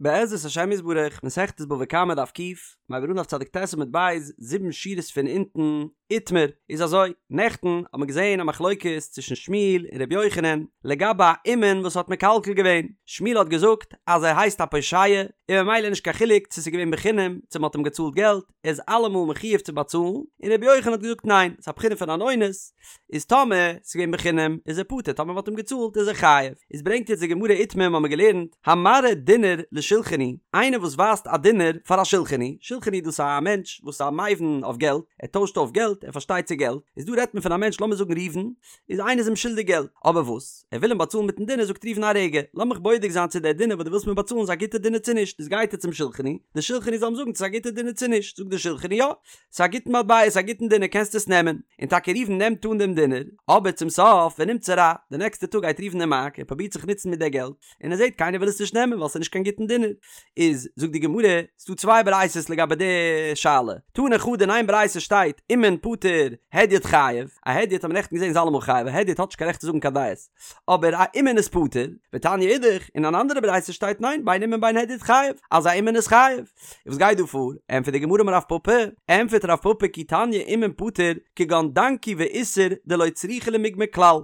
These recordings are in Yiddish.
בעזרת השם יתברך, מסכת בבא קמא דף ק', מיר הייבן אן דף צדיק ט עמוד ב', זיבן שורות פון אונטן, איתמר, איז אזוי, נעכטן האט מען געזען א מחלוקת צווישן שמואל און ר' יוחנן לגבי א אומן וואס האט מקלקל געווען, שמואל האט געזאגט אז ער הייסט א פושע און ממילא נישט קיין חילוק צו ס'איז געווען בחינם צו מ'האט אים געצאלט געלט, ער איז אלעמאל מחיוב צו באצאלן, און רבי יוחנן האט געזאגט ניין, ס'איז א בחינה פון אן אונס, איז טאמער ס'איז געווען בחינם איז ער פטור, טאמער מ'האט אים געצאלט איז ער חייב. איז ברענגט יעצט די גמרא איתמר האמיר געלערנט, המראה דינר לשולחני, איינער וואס ווייזט א דינר פאר א שולחני, שולחני דאס איז א מענטש וואס איז א מבין אויף געלט, ער טוישט אויף געלט, ער פארשטייט צו געלט, איז דא רעדט מען פון א מענטש לאמיר זאגן ראובן, איז איינער איז אים שולדיג געלט, אבער וואס? ער וויל אים באצאלן מיטן דינר, זאגט ראובן א רגע, לאמיך בודק זיין צו דער דינר וואס דו ווילסט מיר באצאלן איז א גוטע דינר צו נישט, איז גייט ער צום שולחני, דער שולחני זאל אים זאגן צו ס'איז א גוטע דינר צו נישט, זאגט דער שולחני יא, ס'איז א גוטן מטבע, ס'איז א גוטן דינר קענסט עס נעמען, און טאקע ראובן נעמט אן דעם דינר, אבער צום סוף ונמצא רע, די נעקסטע טאג גייט ראובן אין מארק, ער פרובירט זיך נוצן מיט דער געלט, און ער זעט קיינער וויל עס נישט נעמען ווייל ס'איז נישט קיין גוטן דינר, איז זאגט די גמרא, ס'דא צוויי ברייתות לגבי די שאלה, תני חדא אין איין ברייתא שטייט אומן פטור הדיוט חייב, א הדיוט האט מען נעכטן געזען איז אלעמאל חייב, א הדיוט האט נישט קיין רעכט צו זאגן קיין דעות, אבער א אומן איז פטור, ותניא אידך, אין אן אנדערע ברייתא שטייט ניין בין אומן בין הדיוט חייב, אז א אומן איז חייב. און וואס גייט דא פאר? ענטפערט די גמרא אמר רב פפא, ענטפערט רב פפא כי תניא אומן פטור כגון דנקי ואיסר דלא צריכי למיגמר כלל,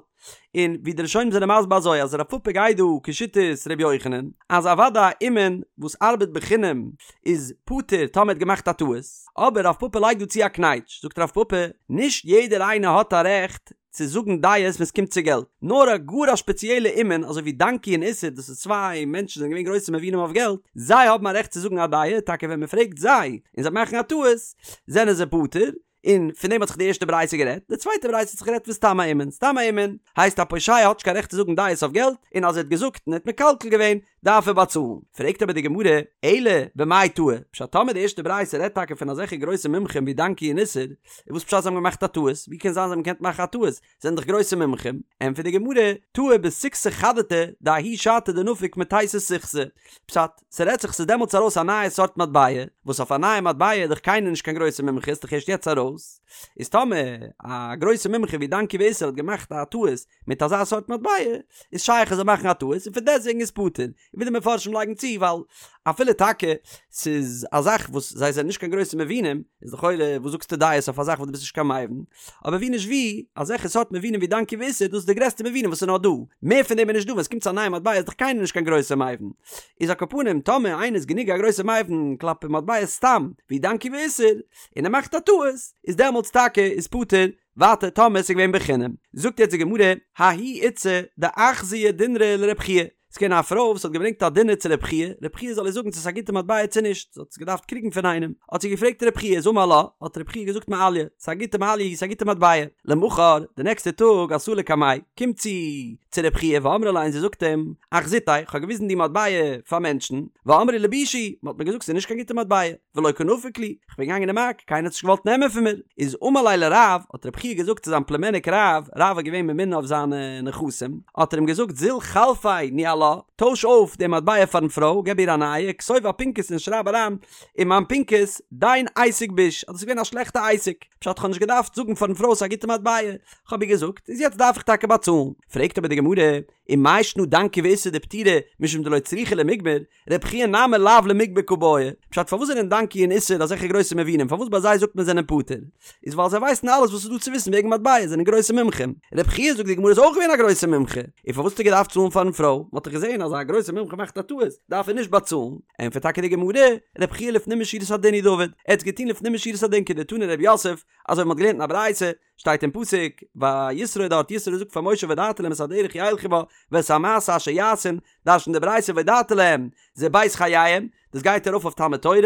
און ווי די ראשונים זענען מסביר אזוי אז רב פפא גייט דא כשיטת ר' יוחנן אז אוודאי א אומן וואס ארבעט בחינם איז פטור טאמער האט געמאכט א טעות, אבער רב פפא לייגט דא צו א קנייטש, זאגט רב פפא, נישט יעדער איינער האט א רעכט צו זאגן דעות ווען ס'קומט צו געלט, נאר א גאר א שפעציעלע אומן אזוי ווי דנקי און איסר דאס איז צוויי מענטשן זענען געווען גרויסע מבינים אויף געלט, זיי האבן א רעכט צו זאגן א דעה, טאקע ווען מ'פרעגט זיי און זיי מאכן א טעות זענען זיי פטור, און פון דעם האט זיך די ערשטע ברייתא גערעדט, די צווייטע ברייתא האט זיך גערעדט פון סתם א אומן, סתם א אומן הייסט א פושע האט נישט קיין רעכט צו זאגן דעות אויף געלט, און אז ער האט געזאגט און ער האט מקלקל געווען דארף ער באצאלן. פרעגט אבער די גמרא, אלא במאי טעו, פשט טאמער די ערשטע ברייתא רעדט טאקע פון אזעלכע גרויסע מומחים ווי דנקי און איסר, איז וואס פשט זיי האבן געמאכט א טעות, ווי קען זיין זיי האבן געקענט מאכן א טעות, זענען דאך גרויסע מומחים, ענטפערט די גמרא, טעו בסיכתא חדתא דההוא שעתא דנפק מתיתא סיכתא, פשט, ס'רעדט זיך ס'איז דעמאלטס ארויס א נייע סארט מטבע, וואס אויף א נייע מטבע איז דאך קיינער נישט קיין גרויסע מומחה ס'איז דאך ערשט יעצט ארויס, איז טאמער א גרויסע מומחה ווי דנקי ואיסר האט געמאכט א טעות מיט אזא סארט מטבע, איז שייך ער זאל מאכן א טעות און פון דעסטוועגן איז פטור, ווי די מפרשים לייגן צו ווייל אפילו טאקע ס'איז א זאך וואס זיי זענען נישט קיין גרויסע מבינים, איז לכאורה וואס זאגסטו דעות אויף א זאך וואס דו ביסט נישט קיין מבין, אבער ווי נישט ווי, אזעלכע סארט מבינים ווי דנקי ואיסר דאס איז די גרעסטע מבינים וואס איז נאר דא, מער פון דעם איז נישט דא, ווען ס'קומט צו א נייע מטבע איז דאך קיינער נישט קיין גרויסע מבין, איז על כל פנים טאמער איינער איז גענוג א גרויסע מבין כלפי מטבעות סתם ווי דנקי ואיסר, און ער מאכט א טעות, איז דעמאלטס טאקע איז פטור, ווייטער טאמער ס'איז געווען בחינם. זאגט יעצט די גמרא, ההיא איתתא דאחזייה דינרא לרב חייא, ס'איז געווען א פרוי וואס האט געברענגט א דינר צו רב חייא, רב חייא זאל איר זאגן צו ס'איז א גוטע מטבע צו נישט, זי האט עס געדארפט קריגן פון איינעם, האט זי געפרעגט רב חייא, איז אמר לה, האט רב חייא געזאגט מעליא, ס'איז א גוטע מעליא, ס'איז א גוטע מטבע. למחר, די נעקסטע טאג, אתא לקמיה, קומט זי צו רב חייא ואמרה ליה און זי זאגט אים, אחזיתיה, כ'האב געוויזן די מטבע פאר מענטשן, ואמרי לי בישא היא, מ'האט מיר געזאגט ס'איז נישט קיין גוטע מטבע. ולא קא נפיק לי, כ'בין געגאנגען אין מארק, קיינער האט נישט געוואלט נעמען פון מיר, איז אמר ליה לרב, האט רב חייא געזאגט צו זיין פלומעניק רב, רב איז געווען ממונה אויף זיינע נכסים, האט ער אים געזאגט זיל חלפיה ניהלה, טויש אויף די מטבע פארן פרוי, געב איר א נייע, כתוב אפינקס און שרייב אריין אין מיין פנקס, דין עסק ביש, אז דאס איז געווען א שלעכטע עסק, פשט כ'האב נישט געדארפט זאגן פארן פרוי ס'איז א גוטע מטבע, כ'האב איר געזאגט, איז יעצט דארף איך טאקע באצאלן. פרעגט אבער די גמרא, ומאי שנא דנקי ואיסר דפטירי משום דלא צריכי למיגמר, רב חייא נמי לאו למיגמר קא בעי, פשט פארוואס זענען דנקי און איסר אזעלכע גרויסע מבינים פארוואס ביי זיי זאגט מען זענען פטור איז ווייל זיי ווייסן אלעס וואס איז דא צו וויסן וועגן מטבע זענען גרויסע מומחים, רב חייא זאגט די גמרא איז אויך געווען א גרויסע מומחה, און פארוואס האט ער געדארפט צאלן פארן פרוי, מ'האט דאך געזען אז א גרויסע מומחה מאכט א טעות דארף ער נישט באצאלן, ענטפערט טאקע די גמרא, רב חייא לפנים משורת הדין הוא דעבד, ער האט עס געטון לפנים משורת הדין כדתני רב יוסף, אזוי ווי מ'האט געלערנט אין א ברייתא, שטייט אין פסוק ביי יתרו דארט יתרו זאגט פאר משה והודעת להם את הדרך ילכו בה ואת המעשה אשר יעשון, דרש'נט די ברייתא והודעת להם זה בית חייהם, דאס גייט ארויף אויף תלמוד תורה,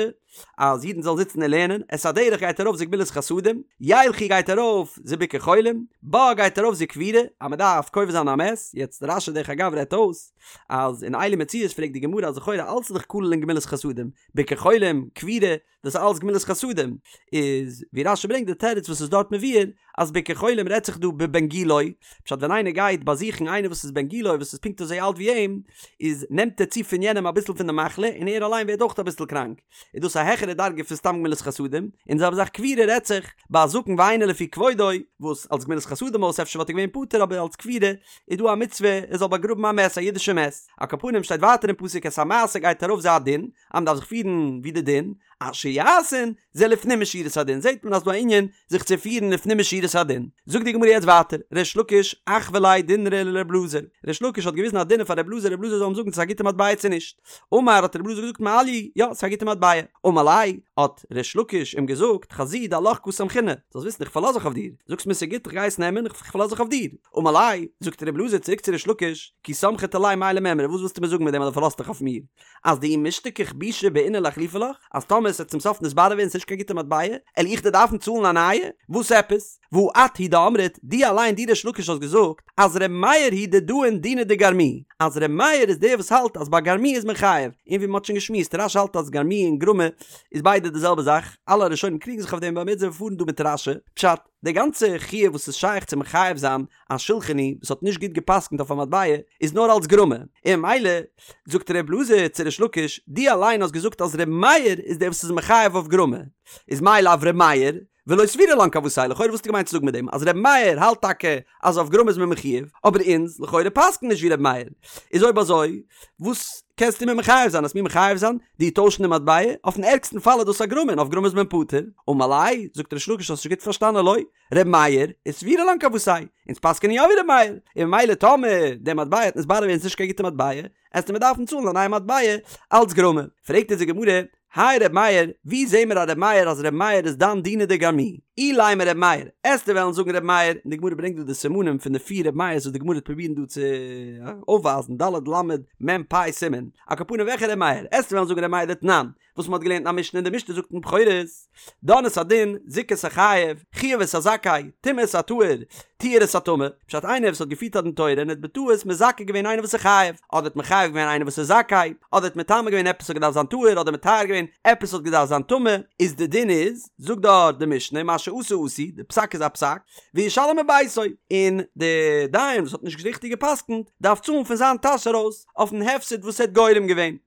אז אידן זאלן זיצן און לערנען, את הדרך גייט ארויף זה גמילות חסדים, ילכו גייט ארויף זה ביקור חולים, בה גייט ארויף זה קבורה, אז מען דארף קובר זיין א מת, יעצט רש"י דרך אגב רעדט אויס אז אין אלו מציאות פרעגט די גמרא אז לכאורה אלץ איז דאך כולל אין גמילות חסדים, ביקור חולים, קבורה, דאס איז אלץ גמילות חסדים, איז ווי רש"י ברענגט די תירוץ וואס איז דארט מבואר, אז ביקור חולים רעדט זיך דא בבן גילו, פשט ווען איינער גייט באזוכן איינער וואס איז בן גילו וואס איז פונקט אזוי אלט ווי אים, איז נעמט ער צו פון יענעם אביסל פון די מחלה און ער אליין ווערט אויך אביסל קראנק, איז דאס א העכערע דרגה פון סתם גמילות חסדים, און די זעלבע זאך קבורה רעדט זיך ביי א זקן ואינו לפי כבודו, וואס אלס גמילות חסדים אויס אפשר וואלט ער געווען פטור אבער אלס קבורה איז דא א מצוה ער זאל באגראבן א מת א אידישע מת, על כל פנים שטייט ווייטער אין פסוק את המעשה גייט ארויף זה הדין, אז מען דארף זיך פירן ווי די דין, אשר יעשון זה לפנים משורת הדין, זעט מען אז דא א ענין זיך צו פירן לפנים משורת הדין. זאגט די גמרא יעצט ווייטער, ריש לקיש אחוי ליה דינרא לר' אלעזר, ריש לקיש האט געוויזן א דינר פאר ר' אלעזר, ר' אלעזר זאל אים זאגן צו ס'איז א גוטע מטבע צו נישט, אמר האט ר' אלעזר געזאגט מעליא, יא ס'איז א גוטע מטבע, אמר ליה האט ריש לקיש אים געזאגט חזי דעלך קא סמכינא, זאלסט וויסן איך פארלאז זיך אויף דיר, זאגסט מיר ס'איז גוט איך גיי עס נעמען, איך פארלאז זיך אויף דיר, אמר ליה זאגט ר' אלעזר צוריק צו ריש לקיש, כי סמכת עלי מאי למימרא וואס ווילסטו מיר זאגן מיט דעם אז דו פארלאזט דיך אויף מיר? אז דאי משתכח בישא בעינא לאחלופי לך, אז טאמער עס וועט צום סוף נתברר ווערן ס'נישט קיין גוטע מטבע, על איך דיר דארפן צאלן א נייע? וואס עפעס? והא את הוא דאמרת, דו אליין דו ריש לקיש האסט געזאגט אז ר' מאיר הוא דדאין דינא דגרמי, אז ר' מאיר איז דער וואס האלט אז ביי גרמי איז מען חייב, און ווי מ'האט שוין געשמועסט רש"י האלט אז גרמי און גרמא איז ביידע די זעלבע זאך, אלע ראשונים קריגן זיך אויף דעם אבער מיר פארן דא מיט רש"י, פשט, די גאנצע חיוב וואס איז שייך צו מחייב זיין א שולחני וואס האט נישט גוט גע'פסק'נט אויף א מטבע איז נאר אלס גרמא, און ממילא זאגט ר' אלעזר צו ריש לקיש, דו אליין האסט געזאגט אז ר' מאיר איז דער וואס איז מחייב אויף גרמא, איז מאי לאו ר' מאיר, ולא סבירא לן כוותיה, לכאורה וואס האסטו געמיינט צו זאגן מיט דעם אז ר' מאיר האלט טאקע אז אויף גרמא איז מען מחויב, אבער אונז לכאורה פסק'ן נישט ווי ר' מאיר, איז אויב אזוי וואס קענסטו מיר מחייב זיין? וועסט מיר מחייב זיין דיר טוישן די מטבע? אויפן ערגסטן פאל איז דאס א גרמא און אויף גרמא איז מען פטור. אמר ליה, זאגט ריש לקיש האסט נישט גוט פארשטאנען לא, ר' מאיר וסבירא לן כוותיה, אונז פסק'ענען יא ווי ר' מאיר, און ממילא טאמער די מטבע וועט נתברר ווערן ס'נישט קיין גוטע מטבע, עסטו מיר דארפן צאלן א נייע מטבע אלץ גרמא. פרעגט אונז די גמרא, הי ר' מאיר, ווי זעהן מיר א ר' מאיר אז ר' מאיר איז דן דינא דגרמי? אילימא ר' מאיר, עסטו וועלן זאגן ר' מאיר, און די גמרא ברענגט דא די סימנים פון די פיר ר' מאיר'ס וואס די גמרא וועט פרובירן דא צו אויפווייזן, ד' ל' מ' פ' סימן, על כל פנים וועלכע ר' מאיר, עסטו וועלן זאגן ר' מאיר דתנן, וואס מ'האט געלערנט אין א משנה און די משנה זאגט אין בכורות, דן את הדין, זיכה את החייב, חייב את הזכאי, טימא את הטהור, טיהר את הטמא, פשט איינער וואס האט געפירט א דין תורה און האט בטעות מזכה געווען איינער וואס איז חייב, אדער האט מחייב געווען איינער וואס איז זכאי, אדער האט מטמא געווען עפעס האט געדארפט זיין טהור אדער מטהר געווען עפעס האט געדארפט זיין טמא, איז די דין איז, זאגט דארט די משנה, מה שעשה עשוי, די פסק איז א פסק, וישלם מביתו, און די דיין וואס האט נישט ריכטיג גע'פסק'נט דארף צאלן פון זיין טאש ארויס אויפן הפסד וואס ער האט גורם געווען.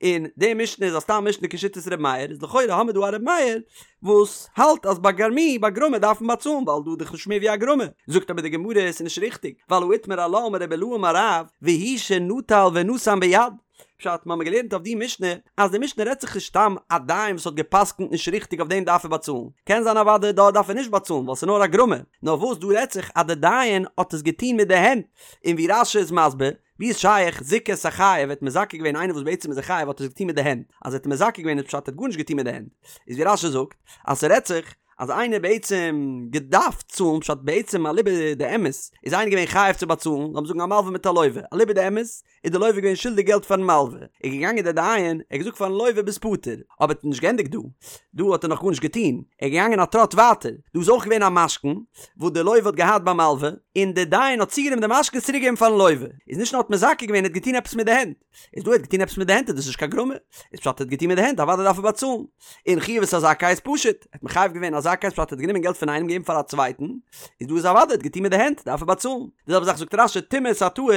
און די משנה איז א סתם משנה כשיטת ר' מאיר, איז לכאורה האמיר דא א ר' מאיר וואס האלט אז ביי גרמי ביי גרמא דארף מען באצאלן ווייל דא איז דאך נישט מער ווי א גרמא, זאגט אבער די גמרא עס איז נישט ריכטיג ווייל הא איתמר עלה אמר רבי אילעא אמר רב והוא שנטל ונתן ביד, פשט מ'האמיר געלערנט אויף די משנה אז די משנה רעדט זיך נישט סתם א דיין וואס האט געפסקנט נישט ריכטיג אויף דעם דארף ער באצאלן, קען זיין אוודאי דארט דארף ער נישט באצאלן ווייל ס'איז נאר א גרמא, נאר וואס דא רעדט זיך אז די דיין האט עס געטון מיט די הענט, און ווי רש"י איז מסביר ווי איז שייך זיכה את החייב האט מזכה געווען איינער וואס בעצם איז א חייב האט ער עס געטון מיט די הענט, אז ער האט מזכה געווען איז פשט ער האט גארנישט געטון מיט די הענט, איז ווי רש"י זאגט אז ס'רעדט זיך אז איינער בעצם געדארפט צאלן פשט בעצם אליבא דאמת איז איינער געווען חייב צו באצאלן לאמיר זאגן א מלווה מיט א לווה אליבא דאמת איז די לווה געווען שולדיג געלט פארן מלווה איז געגאנגען דער דיין ער האט געזאגט פארן לווה ביסט פטור אבער ער האט נישט געענדיגט דא דא האט ער נאך גארנישט געטון ער איז געגאנגען א טראט ווייטער דא איז אויך געווען א משכון וואס די לווה האט געהאט ביים מלווה, און די דיין האט צוגענומען די משכון און צוריקגעגעבן פארן לווה, איז נישט נאר האט מזכה געווען, ער האט געטון עפעס מיט די הענט, איז דא ער האט געטון עפעס מיט די הענט איז דאס נישט קיין גרמא, איז פשט ער האט געטון מיט די הענט אוודאי דארף ער באצאלן, און חייב את הזכאי איז פשוט, ער האט מחייב געווען א זכאי איז פשט ער האט גענומען געלט פון איינעם געגעבן פאר א צווייטן, איז דא איז אוודאי ער האט געטון מיט די הענט דארף ער באצאלן, די זעלבע זאך זאגט רש"י טימא את הטהור,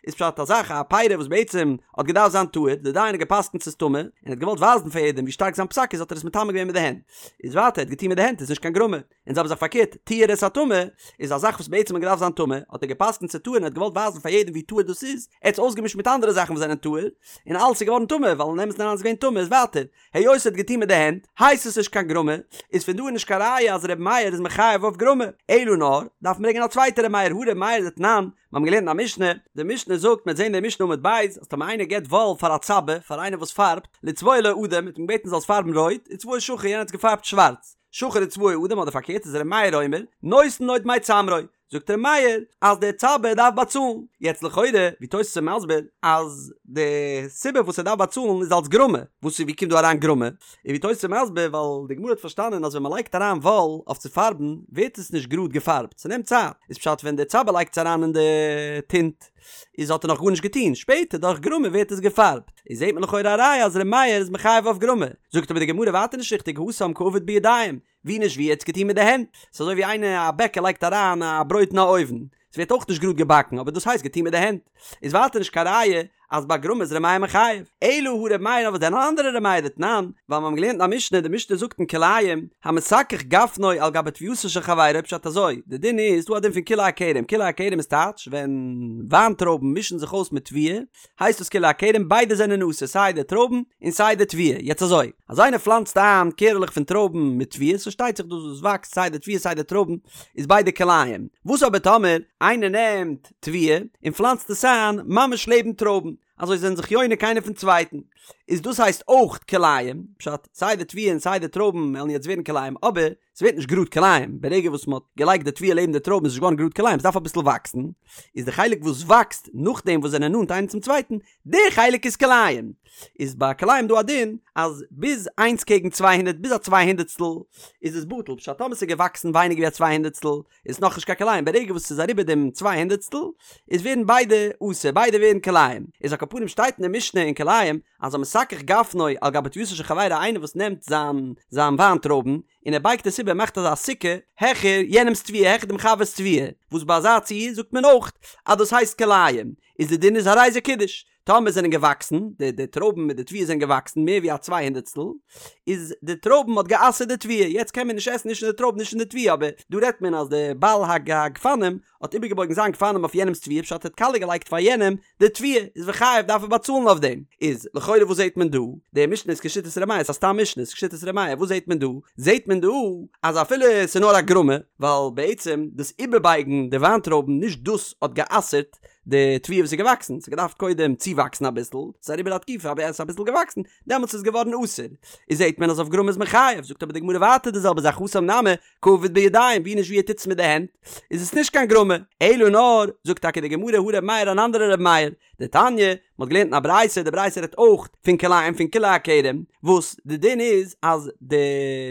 איז פשט א זאך א פרי וואס בעצם האט געדארפט זיין טהור, די דיין האט געפסקנט ס'איז טמא, און ער האט געוואלט ווייזן פאר יעדעם ווי שטארק זיין פסק איז האט ער עס מטמא געווען מיט די הענט, איז ווייטער ער האט געטון מיט די הענט איז נישט קיין גרמא. און זעלבע זאך פארקערט, טיהר את הטמא, איז א זאך וואס בעצם האט געדארפט זיין טמא, האט ער געפסקנט ס'איז טהור און האט געוואלט ווייזן פאר יעדעם ווי טהור דאס איז, ער האט עס אויסגעמישט מיט אנדערע זאכן וואס זענען טהור, און אלעס איז געווארן טמא, ווייל אין אמת'ן אריין איז געווען טמא, איז ווייטער, היות ער האט געטון מיט די הענט, הייסט עס נישט קיין גרמא, איז פון דא איז נישט קיין ראיה אז ר' מאיר איז מחייב אויף גרמא, אלא נאר, דארף מען ברענגען א צווייטע ר' מאיר, הא ר' מאיר דתנן, מיר האבן געלערנט אין א משנה, די משנה זאגט, מ'וועט זען די משנה עמוד ב', אז טאמער איינער געבט וואל פאר א צבע, פאר איינער וואס פארבט, לצבוע לו אדום, מ'האט אים געבעטן זאל עס פארבן רויט, וצבעו שחור, יענער האט עס געפארבט שווארץ. שחור וצבעו אדום אדער פארקערט איז ר' מאיר אומר נותן לו דמי צמרו, זאגט ר' מאיר אז דער צבע דארף באצאלן, יעצט לכאורה ווי תוס' איז מסביר אז די סיבה וואס ער דארף באצאלן איז אלס גרמא, וואס איז ווי קומט דא אריין גרמא, און ווי תוס' איז מסביר ווייל די גמרא האט פארשטאנען אז ווען מען לייגט אריין וואל אויף צו פארבן ווערט עס נישט גראד געפארבט ס'נעמט צייט, איז פשט ווען דער צבע לייגט עס אריין אין די טינט. איז האט ער נאך גארנישט געטון, שפעטער דורך גרמא ווערט עס געפארבט, איז זעט מען לכאורה א ראיה אז ר' מאיר איז מחייב אויף גרמא, זאגט אבער די גמרא ווייטער נישט ריכטיג התם קא עביד בידיים, ווי נישט ווי ער האט עס געטון מיט די הענט, ס'איז אזוי ווי איינער א בעקער לייגט אריין א ברויט אין א אויוון, ס'ווערט אויך נישט גראד געבאקן אבער דאס הייסט געטון מיט די הענט, איז ווייטער נישט קיין ראיה אז ביי גרמא איז ר' מאיר מחייב, אלא הא ר' מאיר אבער דען אן אנדערע ר' מאיר דתנן, ווייל מיר האבן געלערנט אין א משנה, די משנה זאגט אין כלאים, המסכך גפנו על גבי תבואתו של חברו, פשט אזוי, די דין איז, דא א דין פון כלאי הכרם, כלאי הכרם איז טייטש ווען וויינטרויבן מישן זיך אויס מיט תבואה, הייסט דאס כלאי הכרם, ביידע זענען אסור, סיי די טרויבן און סיי די תבואה, יעצט אזוי, אז איינער פלאנצט איין קערעלעך פון טרויבן מיט תבואה, ס'פארשטייט זיך דאס וואס וואקסט סיי די תבואה סיי די טרויבן איז ביידע כלאים, וואס אבער טאמער איינער נעמט תבואה און פלאנצט עס איין ממש לעבן טרויבן, אזוי זענען זיך יונק איינער פון צווייטן, איז דאס הייסט אויך כלאים, פשט, סיי די תבואה און סיי די טרויבן וועלן יעצט ווערן כלאים, אבער ס'ווערט נישט גראד כלאים, ברגע וואס מ'האט געלייגט די תבואה לעבן די טרויבן איז נישט געווארן גראד כלאים, ס'דארף אביסל וואקסן, איז די חלק וואס וואקסט נאכדעם וואס זענען נאנט איינער צום צווייטן, די חלק איז כלאים. איז ביי כלאים דא א דין אז ביז איינס קעגן 200 ביז א צוויי הונדערטסטל איז עס בטל, פשט טאמער ס'איז געוואקסן ווייניגער ווי א צוויי הונדערטסטל איז נאכנישט קיין כלאים, ברגע וואס ס'איז אריבער דעם צוויי הונדערטסטל איז ווערן ביידע אסור, ביידע ווערן כלאים. איז על כל פנים שטייט אין די משנה אין כלאים אז המסכך גפנו על גבי תבואתו של חברו איינער וואס נעמט זיין זיין וויינטרויבן און ער בייגט עס איבער מאכט אזא סוכה העכער יענעמס תבואה העכער דעם חבר'ס תבואה וואס ביי אזא ציור זאגט מען אויך אז דאס הייסט כלאים איז די דין איז הרי זה קידש טאמער זענען געוואקסן די די טרויבן מיט די תבואה זענען געוואקסן מער ווי א צוויי הונדערטסטל איז די טרויבן האט גע'אסר'ט די תבואה יעצט קען מען נישט עסן נישט פון די טרויבן נישט פון די תבואה אבער דא רעדט מען אז די בעל הגפנים האט איבערגעבויגן זיין גפנים אויף יענעמס תבואה פשט ער האט קאליע געלייגט פאר יענעם די תבואה איז וחייב דארף ער באצאלן אויף דעם. איז לכאורה וואס זעהט מען דא? די משנה איז כשיטת ר' מאיר, ס'איז א סתם משנה, איז כשיטת ר' מאיר, וואס זעהט מען דא? זעהט מען דא אז אפילו ס'איז נאר א גרמא, ווייל בעצם דאס איבערבייגן די וויינטרויבן נישט דאס האט גע'אסר'ט די תבואה וואס איז געוואקסן, ס'האט געדארפט קודם צואוואקסן אביסל, ס'איז אריבער א תקופה אבער עס איז אביסל געוואקסן, דעמאלטס איז געווארן אסור. איז זעהט מען אז אויף גרמא איז מען חייב, זאגט אבער די גמרא ווייטער די זעלבע זאך התם נמי, קא עביד בידיים, ווי נישט ווי ער טוט עס מיט די הענט, איז עס נישט קיין גרמא, אלא נאר, זאגט טאקע די גמרא הא ר' מאיר אן אנדערע ר' מאיר, דתניא, מען האט געלערנט אין א ברייתא, די ברייתא רעדט אויך פון כלאים פון כלאי הכרם, וואס די דין איז אז די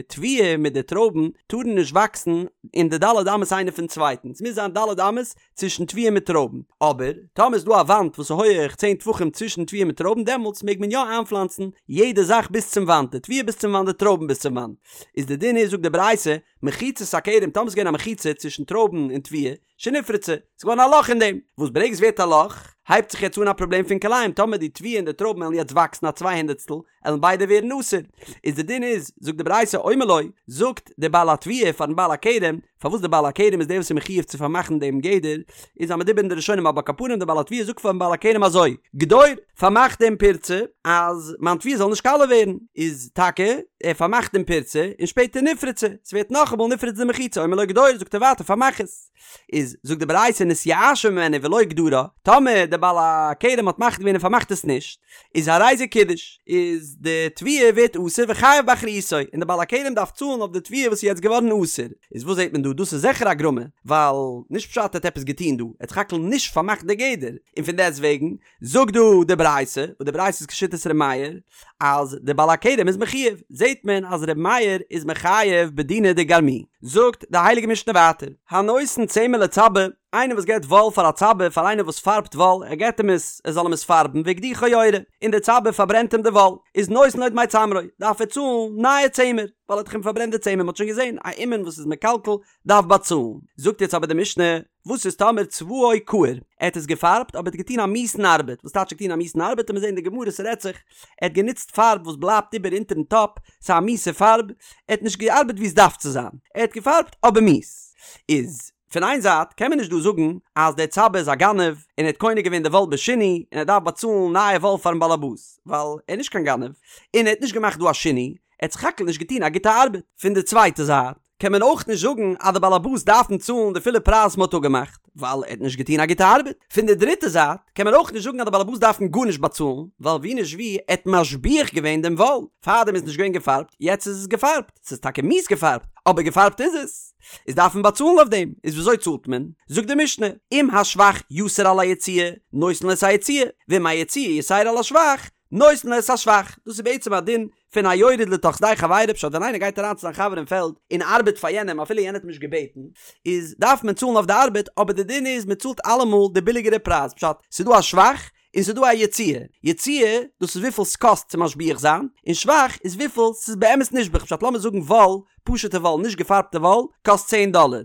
תבואה מיט די טרויבן טארן נישט וואקסן אין די ד' אמות איינער פון צווייטן, עס מוז זיין ד' אמות צווישן תבואה מיט טרויבן, אבער טאמער איז דא א וואנט וואס איז הויעך צען טפחים צווישן תבואה מיט טרויבן דעמאלטס מעג מען יא איינפלאנצן יעדע זאך ביז צום וואנט, די תבואה ביז צום וואנט די טרויבן ביז צום וואנט. איז די דין איז זאגט די ברייתא, מחיצת הכרם טאמער ס'איז געווען א מחיצה צווישן טרויבן און תבואה, שנפרצה, ס'איז געווארן א לאך אין דעם, וואס ברגע ס'ווערט א לאך, הייבט זיך יעצט אן א פראבלעם פון כלאים, טאמער די תבואה און די טרויבן וועלן יעצט וואקסן א צוויי הונדערטסטל, עלן ביידע ווערן אסור. איז די דין איז, זאגט די ברייתא, אומר לו, זאגט דער בעל התבואה פארן בעל הכרם, פארוואס דער בעל הכרם איז דער וואס איז מחויב צו פארמאכן דעם גדר, איז א מדובר אין די ראשונים אבער על כל פנים דער בעל התבואה זאגט פארן בעל הכרם אזוי, גדור, פארמאך דעם פירצה אז מיין תבואה זאל נישט קאלע ווערן, איז טאקע ער פארמאכט דעם פירצה און שפעטער נפרצה, ס'ווערט נאכאמאל נפרץ די מחיצה, אומר לו גדור, זאגט ער ווייטער פארמאך עס. איז זאגט די ברייתא נתייאשה ממנו ולא גדרה, טאמער דער בעל הכרם האט מחליט געווען און פארמאכט עס נישט, איז הרי זה קידש, איז די תבואה ווערט אסור וחייב באחריותו, און דער בעל הכרם דארף צאלן אויף די תבואה וואס איז יעצט געווארן אסור. איז וואס זעט מען דא? דאס איז זיכער א גרמא, ווייל נישט פשט ער האט עפעס געטון דא, ער האט סך הכל נישט פארמאכט די גדר, און פון דעסט וועגן זאגט דא די ברייתא, וואס די ברייתא איז כשיטת ר' מאיר, אז די בעל הכרם איז מחויב, זעט מען אז ר' מאיר איז מחייב בדינא דגרמי. זאגט די הייליגע משנה ווייטער, הנותן צמר לצבע, איינער וואס געבט וואל פאר א צבע, פאר איינער וואס פארבט וואל, ער געבט אים עס, ער זאל אים עס פארבן, והקדיחו יורה, און דער צבע פארברענט אים די וואל, איז נותן לו דמי צמרו, דארף ער צאלן נייע צמר, ווייל ער האט דאך אים פארברענט די צמר, מען האט שוין געזען, א אומן וואס איז מקלקל דארף באצאלן. זאגט יעצט אבער די משנה, וואס איז טאמער צבעו כעור, ער האט עס געפארבט אבער ער האט געטון א מיאוסן ארבעט, וואס טייטש געטון א מיאוסן ארבעט, עמיר זען אין די גמרא ס'רעדט זיך, ער האט גענוצט פארב וואס בלייבט איבער אונטערן טאפ, ס'איז א מיאוסע פארב, ער האט נישט געארבעט ווי עס דארף צו זיין, ער האט געפארבט אבער מיאוס. איז פון איין זייט קען מען נישט דא זאגן אז דער צבע איז א גנב און ער האט קונה געווען די וואל בשינוי און ער דארף באצאלן נייע וואל פארן באלעבאס, ווייל ער איז נישט קיין גנב און ער האט נישט געמאכט דא א שינוי, ער האט סך הכל נישט געטון א גוטע ארבעט. פון די צווייטע זייט קען מען אויך נישט זאגן אז די באלעבאס דארפן צאלן די פולע פרייז וואס מען האט אפגעמאכט, ווייל ער האט נישט געטון א גוטע ארבעט. פון די דריטע זייט קען מען אויך נישט זאגן אז די באלעבאס דארפן גארנישט באצאלן, ווייל ווי נישט ווי, ער האט משביח געווען דעם וואל, פארדעם איז נישט געווען געפארבט, יעצט איז עס געפארבט, ס'איז טאקע מיאוס געפארבט, אבער געפארבט איז עס. איז דארף מען באצאלן אויף דעם, איז וויאזוי צאלט מען? זאגט די משנה, אם השבח יתר על היציאה, נותן לו את היציאה, ואם היציאה יתירה על השבח, נותן לו את השבח, דאס איז בעצם א דין פון א יורד לתוך שדה חבירו, פשט ווען איינער גייט אריין צו זיין חבר אין פעלד און ארבעט פאר יענעם אפילו יענער האט אים נישט געבעטן, איז דארף מען צאלן אויף די ארבעט, אבער די דין איז מען צאלט אלעמאל די ביליגערע פרייז, פשט ס'איז דא א שבח און ס'איז דא א יציאה, יציאה דאס איז וויפיל ס'קאסט צו משביח זיין, און שבח איז וויפיל ס'איז באמת נשבח, פשט לאמיר זאגן וואל, פשוטע וואל נישט געפארבטע וואל, קאסט צען דאלער,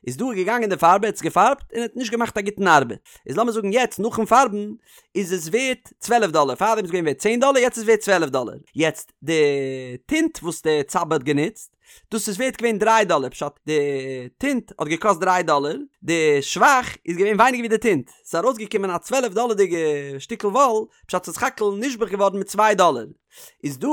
איז דא געגאנגען די פארבער האט עס געפארבט און האט נישט געמאכט א גוטן ארבעט, איז לאמיר זאגן יעצט נאכן פארבן איז עס ווערט צוועלף דאלער, פארדעם איז געווען ווערט צען דאלער יעצט איז ווערט צוועלף דאלער, יעצט די טינט וואס די צבע האט גענוצט דאס איז ווערט געווען דריי דאלער, פשט די טינט האט געקאסט דריי דאלער, די שבח איז געווען ווייניגער ווי די טינט, ס'איז ארויסגעקומען א צוועלף דאלערדיגע שטיקל וואל, פשט ס'איז סך הכל נשבח געווארן מיט צוויי דאלער, איז דא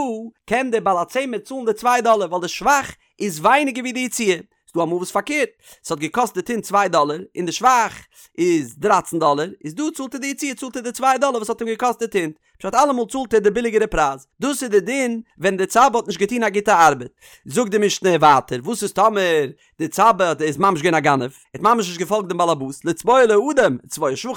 קען דער בעל הצמר צאלן די צוויי דאלער ווייל די שבח איז ווייניגער ווי די יציאה, ס'דא אמאל וואס פארקערט, ס'האט געקאסט די טינט צוויי דאלער און די שבח איז דרייצן דאלער, איז דא צאלט ער די יציאה צאלט ער די צוויי דאלער וואס האט אים געקאסט די טינט, פשט אלעמאל צאלט ער די ביליגערע פרייז, דאס איז די דין ווען די צבע האט נישט געטון א גוטע ארבעט. זאגט די משנה ווייטער, וואס איז טאמער די צבע איז ממש געווען א גנב, ער האט ממש נישט געפאלגט דעם באלעבאס, לצבוע לו אדום, וצבעו שחור,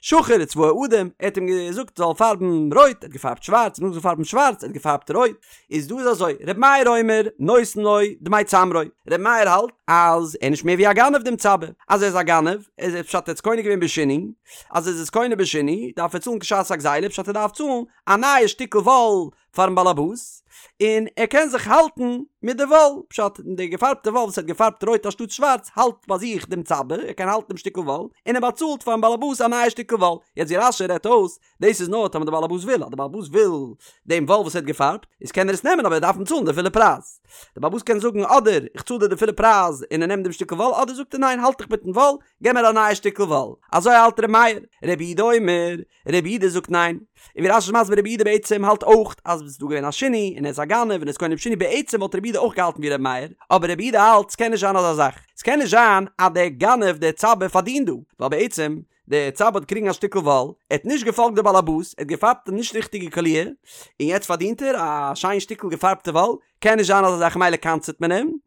שחור וצבעו אדום, ער האט אים געזאגט זאל פארבן רויט, ער האט געפארבט שווארץ, ער האט געזאגט זאל פארבן שווארץ, ער האט געפארבט רויט, איז דא איז אזוי, ר' מאיר אומר, נותן לו דמי צמרו, ר' מאיר האלט אז ער איז נישט מער ווי א גנב דעם צבע, אז ער איז א גנב, איז ער פשט ער האט עס קונה געווען בשינוי, אז ער איז עס קונה בשינוי, דארף ער צאלן כשעת הגזילה, פשט ער דארף צאלן א נייע שטיקל וואל פארן באלעבאס, און ער קען זיך האלטן מיט די וואל, פשט די געפארבטע וואל וואס ער האט געפארבט רויט אנשטאט שווארץ האלט ביי זיך דעם צבע, ער קען האלטן דעם שטיקל וואל, און ער באצאלט פארן באלעבאס א נייע שטיקל וואל, יעצט ווי רש"י רעדט אויס, דאס איז נאר טאמער די באלעבאס וויל, אז די באלעבאס וויל דעם וואל וואס ער האט געפארבט, איז קען ער עס נעמען אבער ער דארף אים צאלן די פולע פרייז. די באלעבאס קען זאגן אדער איך צאל דיר די פולע פרייז און ער נעמט דעם שטיקל וואל, אדער זאגט ער ניין האלט דיך מיטן וואל, געב מיר א נייע שטיקל וואל. אזוי האלט ר' מאיר. רבי יהודה אומר, רבי יהודה זאגט ניין. און ווי רש"י איז מסביר רבי יהודה בעצם האלט אויך אז עס איז דא געווען א שינוי און ער איז א גנב און ער איז קונה בשינוי בעצם וואלט רבי יהודה אויך געהאלטן ווי ר' מאיר, אבער רבי יהודה האלט ס'קען נישט זיין אזא זאך, ס'קען נישט זיין אז דער גנב דער צבע פארדינט דא, ווייל בעצם דער צבע האט געקריגן א שטיקל וואל, ער האט נישט געפאלגט די באלעבאס, ער האט געפארבט די נישט ריכטיגע קאליר, און יעצט פארדינט ער א שיין שטיקל געפארבטע וואל, קען נישט זיין אזא זאך מילא קנס'עט מען אים,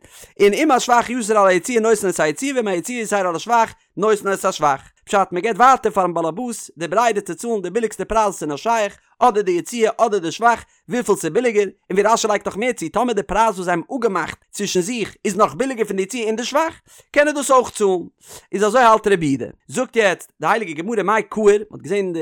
און אם השבח יתר על היציאה נותן את היציאה ואם היציאה יתירה על השבח נותן את השבח. פשט, מען געבט ווייטער פארן באלעבאס די ברירה צו צאלן די ביליגסטע פרייז וואס איז נאר שייך, אדער די יציאה אדער די שבח, וויפיל ס'איז ביליגער, און ווי רש"י לייגט נאך מער צו, טאמער די פרייז וואס זיי האבן אפגעמאכט צווישן זיך איז נאך ביליגער פון די יציאה און די שבח, קען ער דאס אויך צאלן. איז אזוי האלט רבי יהודה. זאגט יעצט די הייליגע גמרא מאי קהיר, מען האט געזען אין די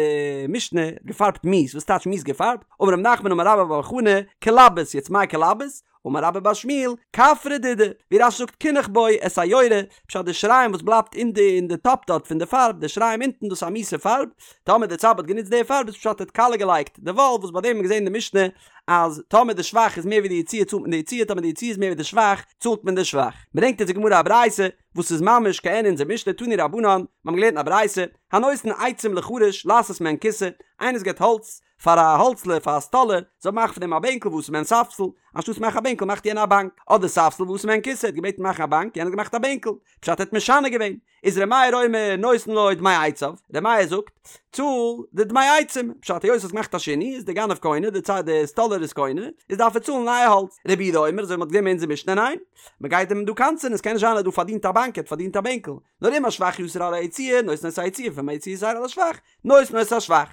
משנה געפארבט מיאוס, וואס טייטש מיאוס געפארבט? אמר רב נחמן אמר רבה בר בר חנה, כלבוס, יעצט מאי כלבוס? אמר רבה בר שמואל, כפרא דודי, ווי רש"י זאגט קינח בו את היורה, פשט די שיריים וואס בלייבט אין די אין די טאפ דארט פון די פארב, די שיריים אונטן דאס איז א מיאוסע פארב, טאמער די צבע האט גענוצט די פארב איז פשט ער האט קאלע געלייגט די וואל, וואס ביי דעם האט מען געזען אין די משנה אז טאמער די שבח איז מער ווי די יציאה צאלט מען די יציאה טאמער די יציאה איז מער ווי די שבח צאלט מען די שבח. ברענגט אונז די גמרא א ברייתא וואס איז ממש כעין אונזער משנה תנו רבנן, מיר האבן געלערנט אין א ברייתא, הנותן עצים לחרש לעשות מהן כסא, איינער וואס געבט האלץ פאר א האלצלער פאר א סטאלער זאל מאכן פון דעם א בענקל ועשה מהן ספסל, אנשטאטס מאכן א בענקל מאכט יענער א באנק, אדער ספסל ועשה מהן כסא, האט געבעטן מאכן א באנק יענער האט געמאכט א בענקל, פשט ער האט משנה געווען, איז ר' מאיר אומר נותן לו דמי עציו, ר' מאיר זאגט, צאל די דמי עצים, פשט היות האסט געמאכט א שינוי איז די גנב קונה, די צד די סטאלער איז קונה, איז דארף ער צאלן נייע האלץ, רבי יהודה אומר אזוי ווי מ'האט געזען אין אונזער משנה ניין, מ'גייט אים דא קנס'ען עס קען נישט זיין אז דא פארדינט א באנק ער האט פארדינט א בענקל, נאר אם השבח יתר על היציאה נותן את היציאה ואם היציאה יתירה על השבח נותן את השבח.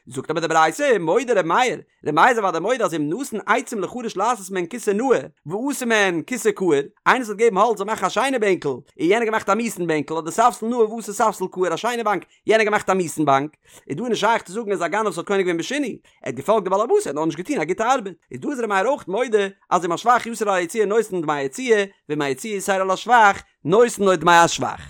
זאגט אבער די ברייתא, מודה ר' מאיר, ר' מאיר איז אוודאי מודה אז אם נתן עצים לחרש לעשות מהן כסא נאה, ועשה מהן כסא כעור, איינער וואס האט געגעבן האלץ זאל מאכן א שיינע בענקל, און יענער געמאכט א מיאוס'ן בענקל, אדער ספסל נאה ועשה ספסל כעור א שיינע באנק, יענער געמאכט א מיאוס'ן באנק, איז דא נישט שייך צו זאגן אז א גנב וואס האט קונה געווען בשינוי, ער האט געפאלגט די בעל הבית ער האט נאר נישט געטון א גוטע ארבעט, איז דא איז ר' מאיר אויך מודה אז אם השבח יתר על היציאה נותן דמי היציאה, ואם היציאה יתירה על השבח, נותן לו דמי השבח.